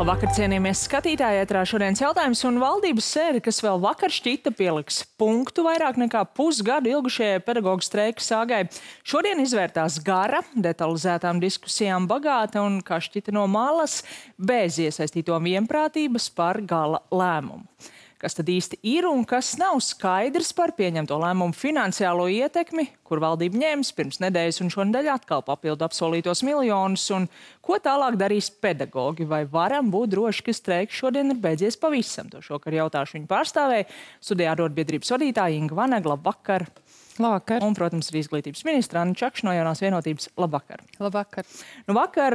Labvakar, cienījamies skatītāji, ētrā šodienas jautājums un valdības sēde, kas vēl vakar šķita pieliks punktu vairāk nekā pusgadu ilgušajai pedagoģu streika sāgai. Šodien izvērtās gara, detalizētām diskusijām bagāta un, kā šķita no malas, bez iesaistīto vienprātības par gala lēmumu. Kas tad īsti ir un kas nav skaidrs par pieņemto lēmumu finansiālo ietekmi, kur valdība ņēmis pirms nedēļas un šonedēļ atkal papildu apsolītos miljonus, un ko tālāk darīs pedagoģi, vai varam būt droši, ka streiks šodien ir beidzies pavisam. To šokar jautāšu viņu pārstāvēja studijā arotbiedrības vadītāja Inga Vanega. Labvakar! Labvakar. Un, protams, arī izglītības ministra Anna Čakša no Jaunās vienotības. Labvakar! Labvakar! Nu, vakar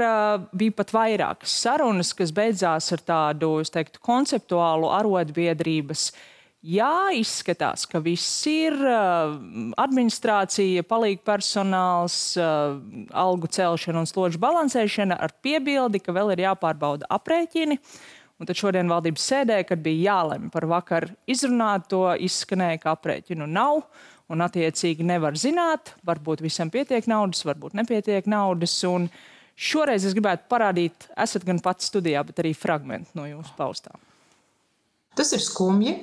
bija pat vairākas sarunas, kas beidzās ar tādu, es teiktu, konceptuālu arotbiedrības. Jā, izskatās, ka viss ir administrācija, palīgpersonāls, algu celšana un slodžu balansēšana ar piebildi, ka vēl ir jāpārbauda aprēķini. Un tad šodien valdības sēdē, kad bija jālemj par vakar izrunāto, izskanēja, ka aprēķinu nav. Un attiecīgi nevar zināt, varbūt visam pietiek naudas, varbūt nepietiek naudas. Un šoreiz es gribētu parādīt, esat gan pats studijā, bet arī fragmenti no jūsu paustā. Tas ir skumji,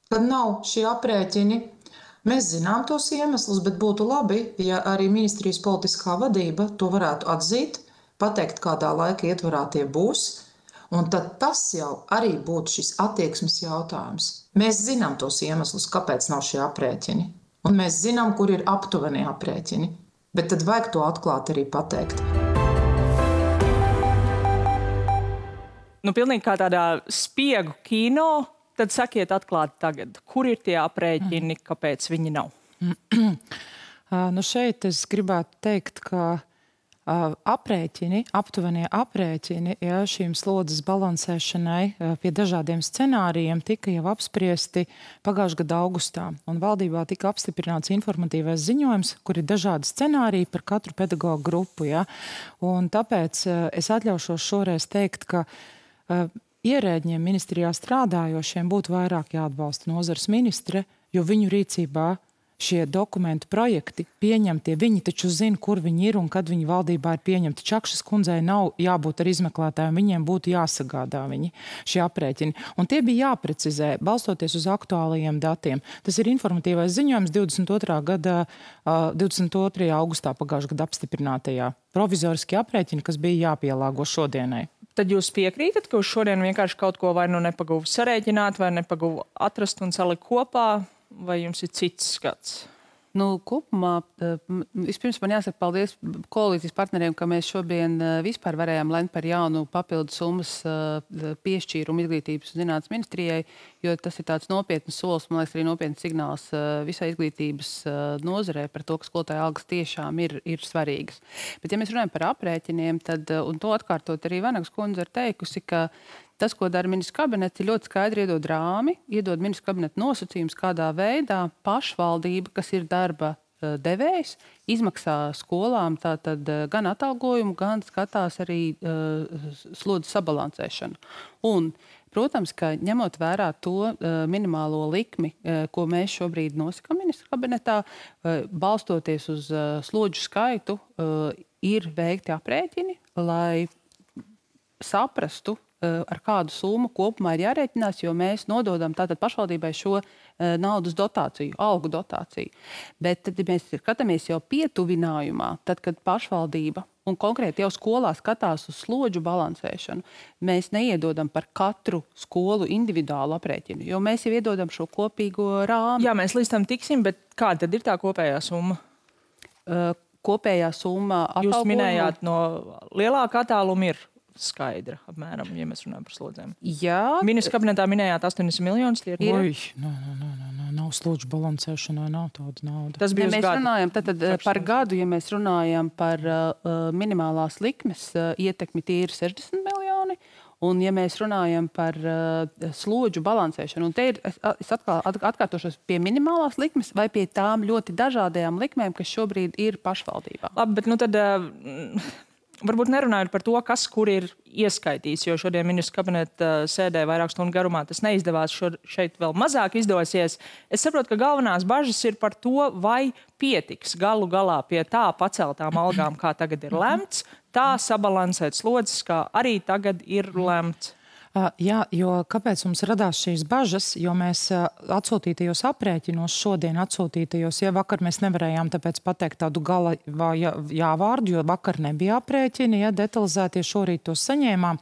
kad nav šie aprēķini. Mēs zinām tos iemeslus, bet būtu labi, ja arī ministrijas politiskā vadība to varētu atzīt, pateikt, kādā laika ietvarā tie būs. Un tad tas jau arī būtu šis attieksmes jautājums. Mēs zinām tos iemeslus, kāpēc nav šie aprēķini. Un mēs zinām, kur ir aptuveni aprēķini, bet tad vajag to atklāt arī pateikt. Nu, pilnīgi kā tādā spiegu kino, tad sakiet atklāti tagad, kur ir tie aprēķini, kāpēc viņi nav? Nu šeit es gribētu teikt, ka aprēķini, aptuvenie aprēķini, ja šīm slodzes balansēšanai pie dažādiem scenārijiem tika jau apspriesti pagājušā gada augustā. Un valdībā tika apstiprināts informatīvais ziņojums, kur ir dažādi scenāriji par katru pedagoģu grupu. Ja? Un tāpēc es atļaušos šoreiz teikt, ka ierēģiem ministrijā strādājošiem būtu vairāk jāatbalsta nozares ministre, jo viņu rīcībā šie dokumentu projekti pieņemtie, viņi taču zina, kur viņi ir un kad viņi valdībā ir pieņemti. Čakšas kundzei nav jābūt ar izmeklētājiem, viņiem būtu jāsagādā šie aprēķini. Un tie bija jāprecizē, balstoties uz aktuālajiem datiem. Tas ir informatīvais ziņojums 22. augustā pagājušā gada apstiprinātajā provizoriskie aprēķini, kas bija jāpielāgo šodienai. Tad jūs piekrītat, ka uz šodien vienkārši kaut ko vai nu nepaguvu sarēķināt, vai nepaguvu atrast un salikt kopā? Vai jums ir cits skats? Nu, kopumā, vispirms man jāsaka paldies koalīcijas partneriem, ka mēs šodien vispār varējām lemt par jaunu papildu summas piešķīrumu izglītības un zinātnes ministrijai, jo tas ir tāds nopietns solis, man liekas, arī nopietns signāls visai izglītības nozarē par to, ka skolotāja algas tiešām ir svarīgas. Bet, ja mēs runājam par aprēķiniem, tad, un to atkārtot arī Vanegas kundze ir teikusi, ka tas, ko dara ministrs kabinets, ir ļoti skaidri iedod rāmi, iedod ministrs kabineta nosacījums, kādā veidā pašvaldība, kas ir darba devējs, izmaksā skolām tātad gan atalgojumu, gan skatās arī slodzes sabalansēšanu. Un, protams, ka ņemot vērā to minimālo likmi, ko mēs šobrīd nosakām ministra kabinetā, balstoties uz slodžu skaitu, ir veikti aprēķini, lai saprastu, ar kādu summu kopumā ir jārēķinās, jo mēs nododam tātad pašvaldībai šo naudas dotāciju, algu dotāciju. Bet tad, ja mēs skatāmies jau pietuvinājumā, tad, kad pašvaldība un konkrēti jau skolā skatās uz slodžu balansēšanu, mēs neiedodam par katru skolu individuālu aprēķinu, jo mēs jau iedodam šo kopīgo rāmu. Jā, mēs līdz tam tiksim, bet kāda tad ir tā kopējā summa? Kopējā summa atalgojuma. Jūs minējāt, no lielāka attāluma ir skaidra, apmēram, ja mēs runājam par slodzēm. Jā. Ministra kabinetā minējāt 80 miljonus. Nav slodžu balansēšanai, nav tāda nauda. Tas bija mēs runājam par gadu, ja mēs runājam par minimālās likmes ietekmi, tie ir 60 miljoni. Un, ja mēs runājam par slodžu balansēšanu, un te ir, es atkārtošos pie minimālās likmes vai pie tām ļoti dažādajām likmēm, kas šobrīd ir pašvaldībā. Labi, bet nu tad varbūt nerunājot par to, kas kur ir ieskaitīts, jo šodien ministra kabineta sēdē vairāk stundu garumā tas neizdevās, šeit vēl mazāk izdosies. Es saprotu, ka galvenās bažas ir par to, vai pietiks galu galā pie tā paceltām algām, kā tagad ir lemts, tā sabalansēt slodzes, kā arī tagad ir lemts. Jā, jo kāpēc mums radās šīs bažas, jo mēs atsūtītajos aprēķinos, šodien atsūtītajos, ja vakar mēs nevarējām tāpēc pateikt tādu gala jāvārdu, jo vakar nebija aprēķini, ja detalizētie šorīt tos saņēmām,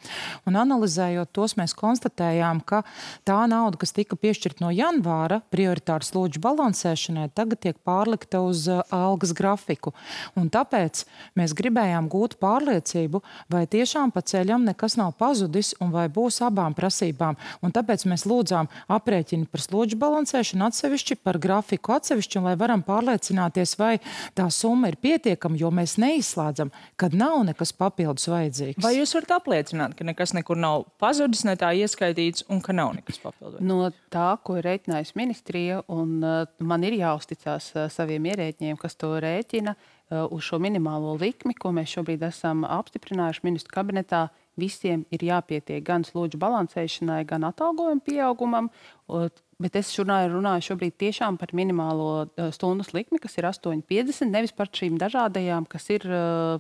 un analizējot tos mēs konstatējām, ka tā nauda, kas tika piešķirt no janvāra prioritāru slodžu balansēšanai, tagad tiek pārlikta uz algas grafiku. Un tāpēc mēs gribējām gūt pārliecību, vai tiešām pa ceļam nekas nav pazudis un vai būs abām prasībām. Un tāpēc mēs lūdzām aprēķini par slodžu balansēšanu atsevišķi, par grafiku atsevišķi, un lai varam pārliecināties, vai tā summa ir pietiekama, jo mēs neizslēdzam, kad nav nekas papildus vajadzīgs. Vai jūs varat apliecināt, ka nekas nekur nav pazudis, ne tā ieskaitīts, un ka nav nekas papildus? No tā, ko ir rēķinājusi ministrija, un man ir jāuzticās saviem ierēķņiem, kas to rēķina, uz šo minimālo likmi, ko mēs šobrīd esam apstiprinājuši ministru kabinetā, visiem ir jāpietiek gan slodžu balansēšanai, gan atalgojuma pieaugumam, bet es runāju šobrīd tiešām par minimālo stundas likmi, kas ir 8,50, nevis par šīm dažādajām, kas ir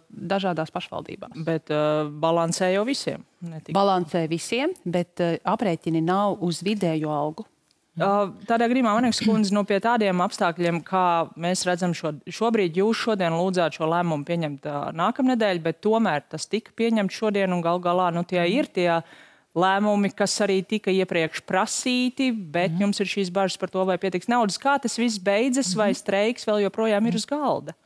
dažādās pašvaldībās. Bet balansē jau visiem? Balansē visiem, bet aprēķini nav uz vidējo algu. Tādā gadījumā, Vanegas kundze, pie tādiem apstākļiem, kā mēs redzam šobrīd, jūs šodien lūdzāt šo lēmumu pieņemt nākamnedēļ, bet tomēr tas tika pieņemts šodien un gal galā tie ir tie lēmumi, kas arī tika iepriekš prasīti, bet jums ir šīs bažas par to, vai pietiks naudas. Kā tas viss beidzas, vai streiks vēl joprojām ir uz galda?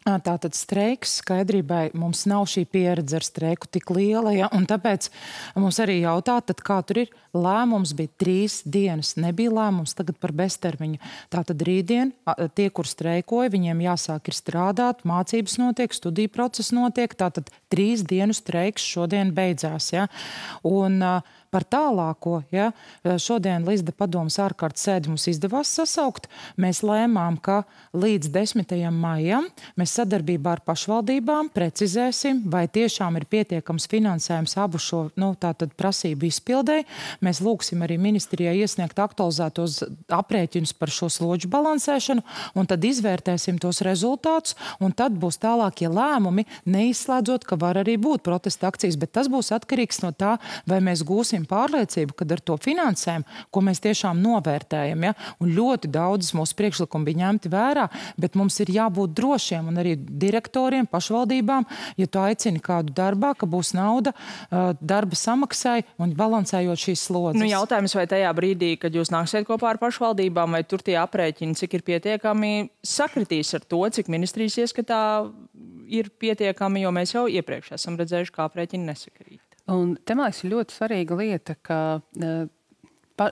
Tātad streiks skaidrībai mums nav šī pieredze ar streiku tik liela, ja? Un tāpēc mums arī jautā, tad kā tur ir. Lēmums bija 3 dienas, nebija lēmums tagad par beztermiņu. Tātad rītdien tie, kur streikoja, viņiem jāsāk ir strādāt, mācības notiek, studiju process notiek, tātad 3 dienu streiks šodien beidzās. Ja? Un par tālāko, ja, šodien Līsda padomas ārkārtas sēdi mums izdevās sasaukt. Mēs lēmām, ka līdz 10. maijam mēs sadarbībā ar pašvaldībām precizēsim, vai tiešām ir pietiekams finansējums abu šo tātad prasību izpildēji. Mēs lūgsim arī ministrijai iesniegt aktualizētos aprēķinus par šo slodžu balansēšanu, un tad izvērtēsim tos rezultātus, un tad būs tālākie lēmumi, neizslēdzot, ka var arī būt protesta akcijas, bet tas būs atkarīgs no tā, vai mēs gūsim pārliecību, kad ar to finansējumu, ko mēs tiešām novērtējam, ja? Un ļoti daudzas mūsu priekšlikumi bija ņemti vērā, bet mums ir jābūt drošiem, un arī direktoriem, pašvaldībām, ja tu aicini kādu darbā, ka būs nauda darba samaksai un balansējot šīs slodzes. Jautājums, vai tajā brīdī, kad jūs nāksiet kopā ar pašvaldībām, vai tur tie aprēķini, cik ir pietiekami, sakritīs ar to, cik ministrijas ieskatā ir pietiekami, jo mēs jau iepriekš esam redzējuši, kā aprēķini nesakrīt. Un te, man liekas, ir ļoti svarīga lieta, ka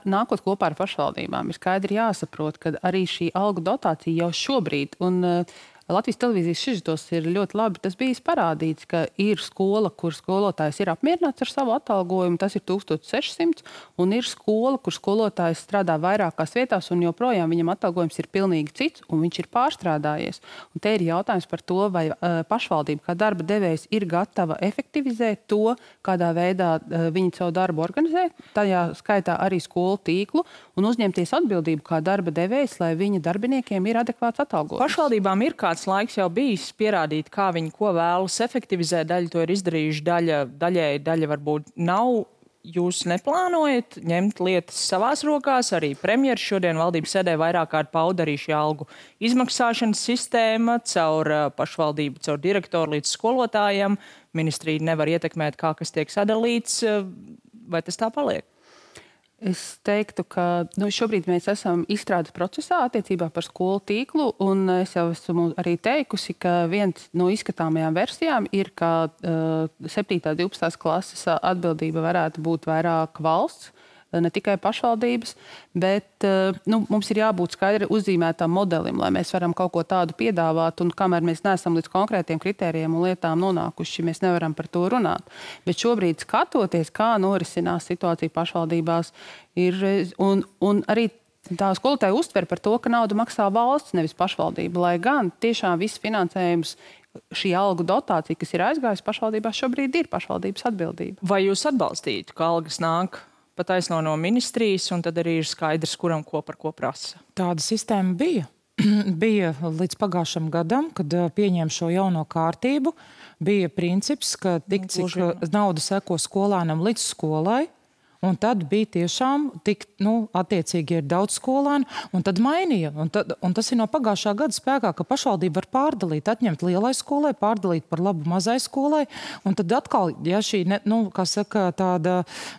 nākot kopā ar pašvaldībām ir skaidri jāsaprot, ka arī šī algu dotācija jau šobrīd, un Latvijas televīzijas sižetos ir ļoti labi tas bijis parādīts, ka ir skola, kur skolotājs ir apmierināts ar savu atalgojumu, tas ir 1600, un ir skola, kur skolotājs strādā vairākās vietās, un joprojām viņam atalgojums ir pilnīgi cits, un viņš ir pārstrādājies. Un te ir jautājums par to, vai pašvaldība kā darba devējs ir gatava efektivizēt to, kādā veidā viņi savu darbu organizē, tajā skaitā arī skolu tīklu, un uzņemties atbildību kā darba devējs, lai viņa darbiniekiem ir adekvāts atalgojums. Pašvaldībām ir kāds laiks jau bijis pierādīt, kā viņi ko vēlas efektivizēt. Daļa to ir izdarījuši, daļa varbūt nav. Jūs neplānojat ņemt lietas savās rokās? Arī premjeras šodien valdības sēdē vairāk kārt pauda arī šī algu izmaksāšanas sistēma caur pašvaldību, caur direktoru līdz skolotājiem. Ministrija nevar ietekmēt, kā kas tiek sadalīts. Vai tas tā paliek? Es teiktu, ka šobrīd mēs esam izstrādes procesā attiecībā par skolu tīklu, un es jau esmu arī teikusi, ka viens no izskatāmajām versijām ir, ka 7. 12. klases atbildība varētu būt vairāk valsts, ne tikai pašvaldības, bet mums ir jābūt skaidri uzzīmētam modelim, lai mēs varam kaut ko tādu piedāvāt, un kamēr mēs neesam līdz konkrētiem kritērijiem un lietām nonākuši, mēs nevaram par to runāt. Bet šobrīd skatoties, kā norisinās situācija pašvaldībās, un arī tā skolotāja uztver par to, ka naudu maksā valsts, nevis pašvaldība, lai gan tiešām viss finansējums, šī algu dotācija, kas ir aizgājusi pašvaldībās, šobrīd ir pašvaldības atbildība. Vai jūs atbalstītu, ka algas nāk pataisno no ministrijas, un tad arī ir skaidrs, kuram ko par ko prasa? Tāda sistēma bija. Bija līdz pagājušam gadam, kad pieņēma šo jauno kārtību. Bija princips, ka tik cik nauda seko skolānam līdz skolai, Un tad bija tiešām tik, attiecīgi ir daudz skolēnu, un tad mainīja. Un tas ir no pagājušā gada spēkā, ka pašvaldība var pārdalīt, atņemt lielai skolai, pārdalīt par labu mazai skolai, un tad atkal, ja šī, tāda,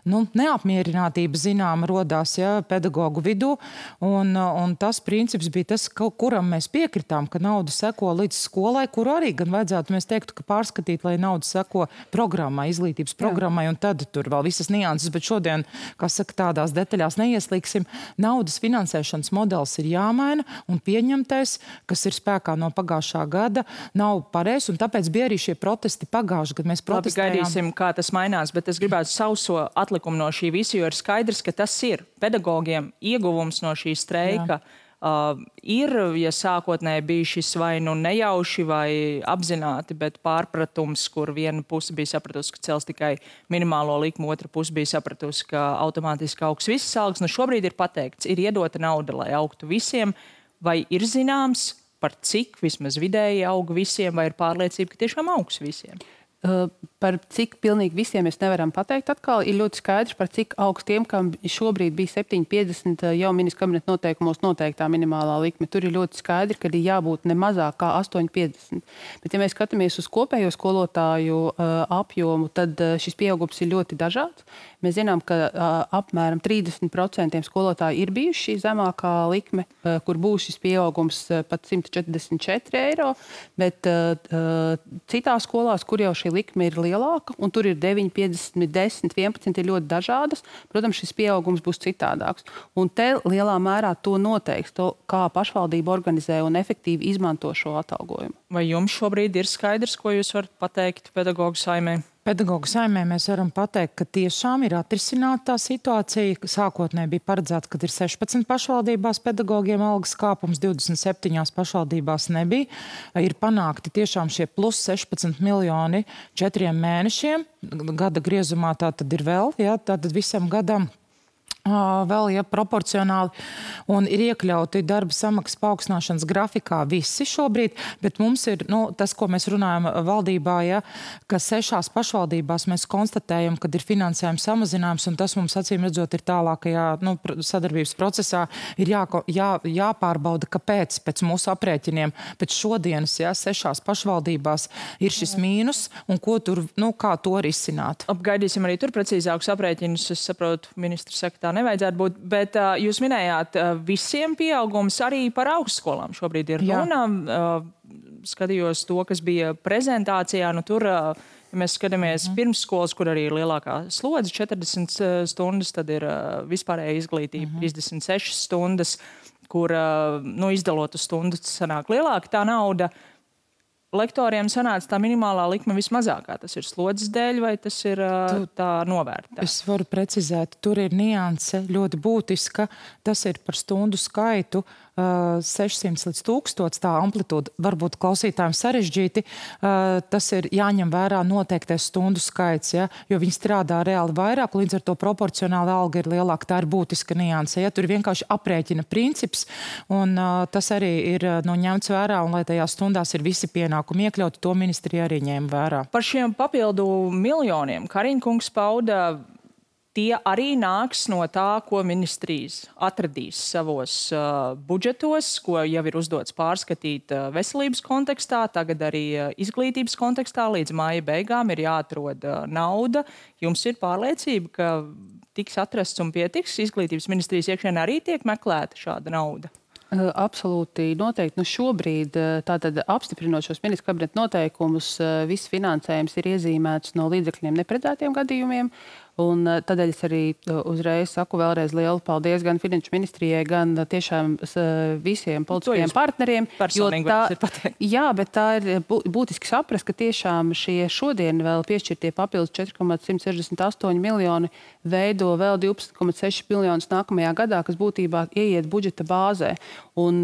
neapmierinātība zināma rodās, pedagogu vidū, un tas princips bija tas, kuram mēs piekritām, ka nauda seko līdz skolai, kuru arī gan vajadzētu, mēs teiktu, ka pārskatīt, lai nauda seko programmai, izglītības programmai, un tad tur vēl visas nianses, bet šodien, tādās detaļās neieslīgsim. Naudas finansēšanas modelis ir jāmaina, un pieņemtais, kas ir spēkā no pagājušā gada, nav pareizs, un tāpēc bija arī šie protesti pagājuši, kad mēs protestējām. Labi, gaidīsim, kā tas mainās, bet es gribētu sauso atlikumu no šī visa, jo ir skaidrs, ka tas ir pedagogiem ieguvums no šī streika. Jā. Ir, ja sākotnēji bija šis vai nejauši vai apzināti, bet pārpratums, kur viena puse bija sapratusi, ka cels tikai minimālo likumu, otra puse bija sapratusi, ka automātiski augs visas algas. Šobrīd ir pateikts, ir iedota nauda, lai augtu visiem, vai ir zināms, par cik vismaz vidēji aug visiem, vai ir pārliecība, ka tiešām augs visiem? Par cik pilnīgi visiem mēs nevaram pateikt atkal. Ir ļoti skaidrs, par cik augstiem, kam šobrīd bija 7,50 jau ministra kabineta noteikumos noteiktā minimālā likme. Tur ir ļoti skaidri, ka ir jābūt ne mazāk kā 8,50. Bet ja mēs skatāmies uz kopējo skolotāju apjomu, tad šis pieaugums ir ļoti dažāds. Mēs zinām, ka apmēram 30% skolotāji ir bijuši šī zemākā likme, kur būs šis pieaugums pat 144 eiro, bet citās skolās, kur jau šī likme ir lielāka, un tur ir 9, 50, 10, 11 ir ļoti dažādas, protams, šis pieaugums būs citādāks. Un te lielā mērā to noteiks, kā pašvaldība organizē un efektīvi izmanto šo atalgojumu. Vai jums šobrīd ir skaidrs, ko jūs varat pateikt pedagogu saimē? Pedagogu saimē mēs varam pateikt, ka tiešām ir atrisināta tā situācija. Sākotnēji bija paredzēts, ka ir 16 pašvaldībās pedagogiem algas kāpums, 27 pašvaldībās nebija. Ir panākti tiešām šie plus 16 miljoni 4 mēnešiem. Gada griezumā tā tad ir vēl, tātad visam gadam. Vēl, proporcionāli, un ir iekļauti darba samaksas paaugstināšanas grafikā visi šobrīd, bet mums ir, tas, ko mēs runājam valdībā, ka 6 pašvaldībās mēs konstatējam, kad ir finansējums samazinājums, un tas mums acīm redzot ir tālākajā sadarbības procesā, ir jāpārbauda, kāpēc pēc mūsu aprēķiniem, pēc šodienas, 6 pašvaldībās ir šis mīnus, un ko tur, kā to risināt. Apgaidīsim arī tur precīzākus aprēķinus, es saprotu, ministrs saka, tā nevajadzētu būt, bet jūs minējāt visiem pieaugums arī par augstskolām. Šobrīd ir runa. Skatījos to, kas bija prezentācijā. Tur, ja mēs skatāmies pirmsskolas, kur arī ir lielākā slodze, 40 stundas, tad ir vispārēja izglītība 36 stundas, kur izdalot uz stundu sanāk lielāka tā nauda. Lektoriem sanāca tā minimālā likme vismazākā. Tas ir slodzes dēļ, vai tas ir tā novērtā? Es varu precizēt, tur ir nianse ļoti būtiska. Tas ir par stundu skaitu 600 līdz 1000, tā amplitūda varbūt klausītājiem sarežģīti. Tas ir jāņem vērā noteiktais stundu skaits, jo viņi strādā reāli vairāk, līdz ar to proporcionāli alga ir lielāka. Tā ir būtiska nianse. Tur ir vienkārši aprēķina princips, un tas arī ir ņemts vērā, un lai tajās stundās ir visi pienākumi iekļauti, to ministrija arī ņēma vērā. Par šiem papildu miljoniem Kariņkungs pauda, tie arī nāks no tā, ko ministrijas atradīs savos budžetos, ko jau ir uzdots pārskatīt veselības kontekstā, tagad arī izglītības kontekstā. Līdz māja beigām ir jāatrod nauda. Jums ir pārliecība, ka tiks atrasts un pietiks? Izglītības ministrijas iekšienē arī tiek meklēta šāda nauda? Absolūti noteikti. Šobrīd, tātad apstiprinot šos ministra kabineta noteikumus, viss finansējums ir iezīmēts no līdzekļiem neparedzētiem gadījumiem. Un tādēļ es arī uzreiz saku vēlreiz lielu paldies gan Finanšu ministrijai, gan tiešām visiem politiskajiem partneriem. Jā, bet tā ir būtiski saprast, ka tiešām šie šodien vēl piešķirtie papildus 4,168 miljoni veido vēl 12,6 miljonus nākamajā gadā, kas būtībā ieiet budžeta bāzē. Un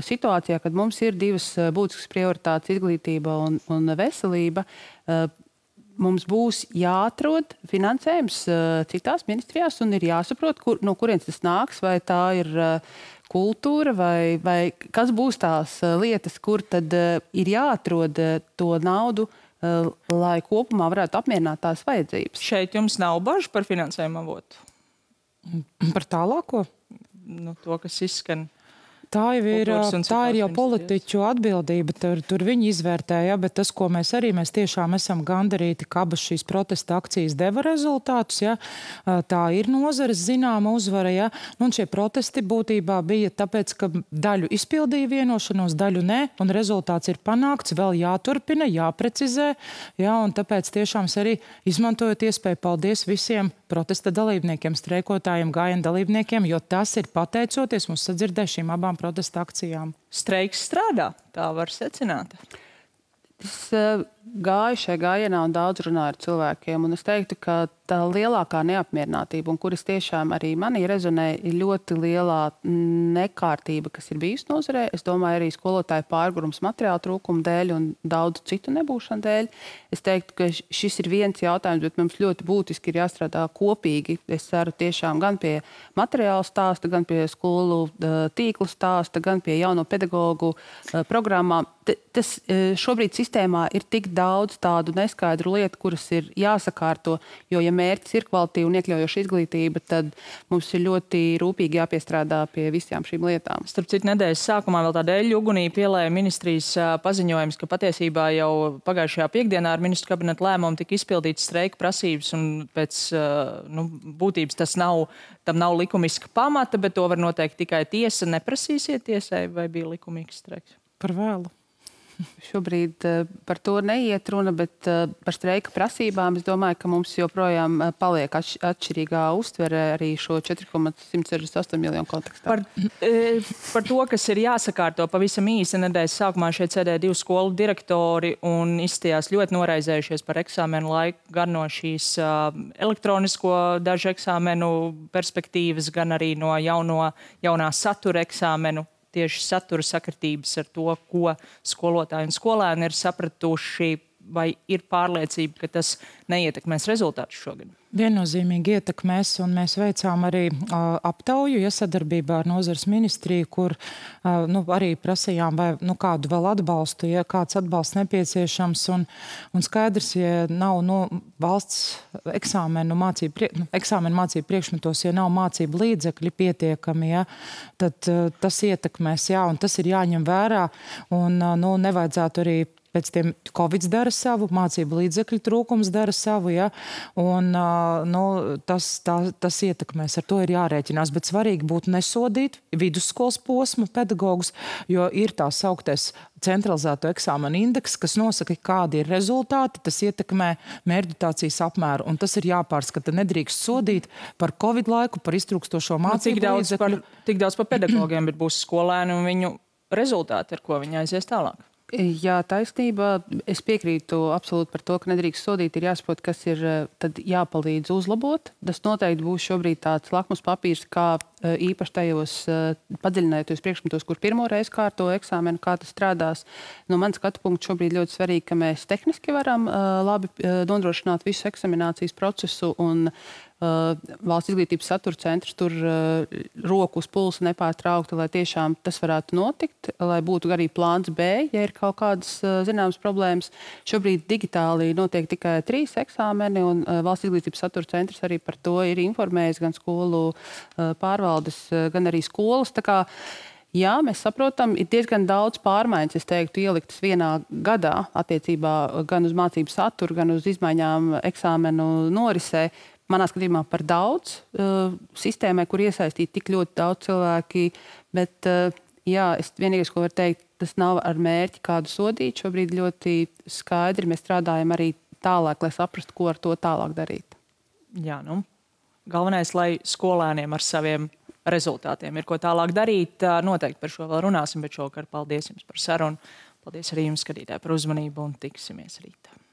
situācijā, kad mums ir divas būtiskas prioritātes, izglītība un veselība, mums būs jāatrod finansējums citās ministrijās un ir jāsaprot, no kurienes tas nāks, vai tā ir kultūra vai kas būs tās lietas, kur tad ir jāatrod to naudu lai kopumā varētu apmierināt tās vajadzības. Šeit jums nav bažu par finansējumu avotu? Par tālāko? To, kas izskan. Tā ir jau politiķu atbildība, tur viņi izvērtēja, bet tas, ko mēs tiešām esam gandarīti, ka abas šīs protesta akcijas deva rezultātus, ja, tā ir nozares zināma uzvara, ja, un šie protesti būtībā bija tāpēc, ka daļu izpildīja vienošanos, daļu nē, un rezultāts ir panākts, vēl jāturpina, jāprecizē, ja, un tāpēc tiešām arī izmantojot iespēju paldies visiem protesta dalībniekiem, streikotājiem, gājienu dalībniekiem, jo tas ir pateicoties mums sadzirdējušiem abām protesta akcijām. Streiks strādā, tā var secināt. Es gāju šajā gājienā un daudz runāju ar cilvēkiem, un es teiktu, ka tā lielākā neapmierinātība, un kuras tiešām arī manī rezonē, ir ļoti lielā nekārtība, kas ir bijusi nozarē. Es domāju, arī skolotāju pārgurums materiālu trūkumu dēļ un daudz citu nebūšanu dēļ. Es teiktu, ka šis ir viens jautājums, bet mums ļoti būtiski ir jāstrādā kopīgi. Es ceru tiešām gan pie materiālu stāsta, gan pie skolu tīklu stāsta, gan pie jauno pedagogu programmām. Tas šobrīd sistēmā ir tik daudz tādu neskaidru lietu, kuras ir jāsakārto, jo, ja mērķis ir kvalitīva un iekļaujoša izglītība, tad mums ir ļoti rūpīgi jāpiestrādā pie visām šīm lietām. Starp citu, nedēļas sākumā vēl tāda eļļu ugunī pielēja ministrijas paziņojums, ka patiesībā jau pagājušajā piekdienā ar ministru kabineta lēmumu tika izpildīts streika prasības, un pēc būtības tam nav likumiska pamata, bet to var noteikt tikai tiesa. Neprasīsiet tiesai, vai bija likumīgs streiks? Par vēlu. Šobrīd par to neiet runa, bet par streika prasībām es domāju, ka mums joprojām paliek atšķirīgā uztvere arī šo 4,168 miljonu kontekstā. Par to, kas ir jāsakārto pavisam īsi, nedēļas sākumā šeit sēdēja 2 skolu direktori un izstījās ļoti noraizējušies par eksāmenu laiku, gan no šīs elektronisko dažu eksāmenu perspektīvas, gan arī no jaunā satura eksāmenu. Tieši satura sakritības ar to, ko skolotāji un skolēni ir sapratuši, vai ir pārliecība, ka tas neietekmēs rezultātus šogad? Viennozīmīgi ietekmēs, un mēs veicām arī aptauju, sadarbībā ar nozares ministriju, kur arī prasījām, vai kādu vēl atbalstu, ja kāds atbalsts nepieciešams, un skaidrs, ja nav valsts eksāmenu mācību priekšmetos, ja nav mācību līdzekļi pietiekami, ja, tad tas ietekmēs, jā, un tas ir jāņem vērā, un nevajadzētu arī pēc tiem Covid dara savu, mācību līdzekļu trūkums dara savu, ja, un tas ietekmēs, ar to ir jārēķinās, bet svarīgi būtu nesodīt vidusskolas posmu pedagogus, jo ir tā sauktais centralizēto eksāmenu indeks, kas nosaka, kādi ir rezultāti, tas ietekmē mērķdotācijas apmēru, un tas ir jāpārskata. Nedrīkst sodīt par Covid laiku, par iztrūkstošo mācību līdzekļu. Tik daudz par pedagogiem, bet būs skolēni un viņu rezultāti, ar ko viņi aizies tālāk. Jā, taisnība. Es piekrītu absolūti par to, ka nedrīkst sodīt, ir jāsaprot, kas ir tad jāpalīdz uzlabot. Tas noteikti būs šobrīd tāds lakmus papīrs, kā īpaši tajos padziļinājoties priekšmetos, kur pirmo reizi kārto eksāmenu, kā tas strādās. No manas skatu punkta šobrīd ļoti svarīgi, ka mēs tehniski varam labi nodrošināt visu eksaminācijas procesu, un Valsts izglītības satura centrs tur roku uz pulsa nepārtraukti, lai tiešām tas varētu notikt, lai būtu arī plāns B, ja ir kaut kādas zināmas problēmas. Šobrīd digitāli notiek tikai 3 eksāmeni, un Valsts izglītības satura centrs arī par to ir informējis gan skolu pārvaldes, gan arī skolas. Tā kā jā, mēs saprotam, ir diezgan daudz pārmaiņas, es teiktu, ieliktas vienā gadā attiecībā gan uz mācību saturu, gan uz izmaiņām eksāmenu norisē. Manā skatījumā par daudz sistēmai, kur iesaistīti tik ļoti daudz cilvēki, bet jā, es vienīgais, ko varu teikt, tas nav ar mērķi kādu sodīt. Šobrīd ļoti skaidri mēs strādājam arī tālāk, lai saprastu, ko ar to tālāk darīt. Jā, galvenais, lai skolēniem ar saviem rezultātiem ir ko tālāk darīt. Noteikti par šo vēl runāsim, bet šovakar paldies jums par sarunu. Paldies arī jums, skatītāji, par uzmanību un tiksimies rītā.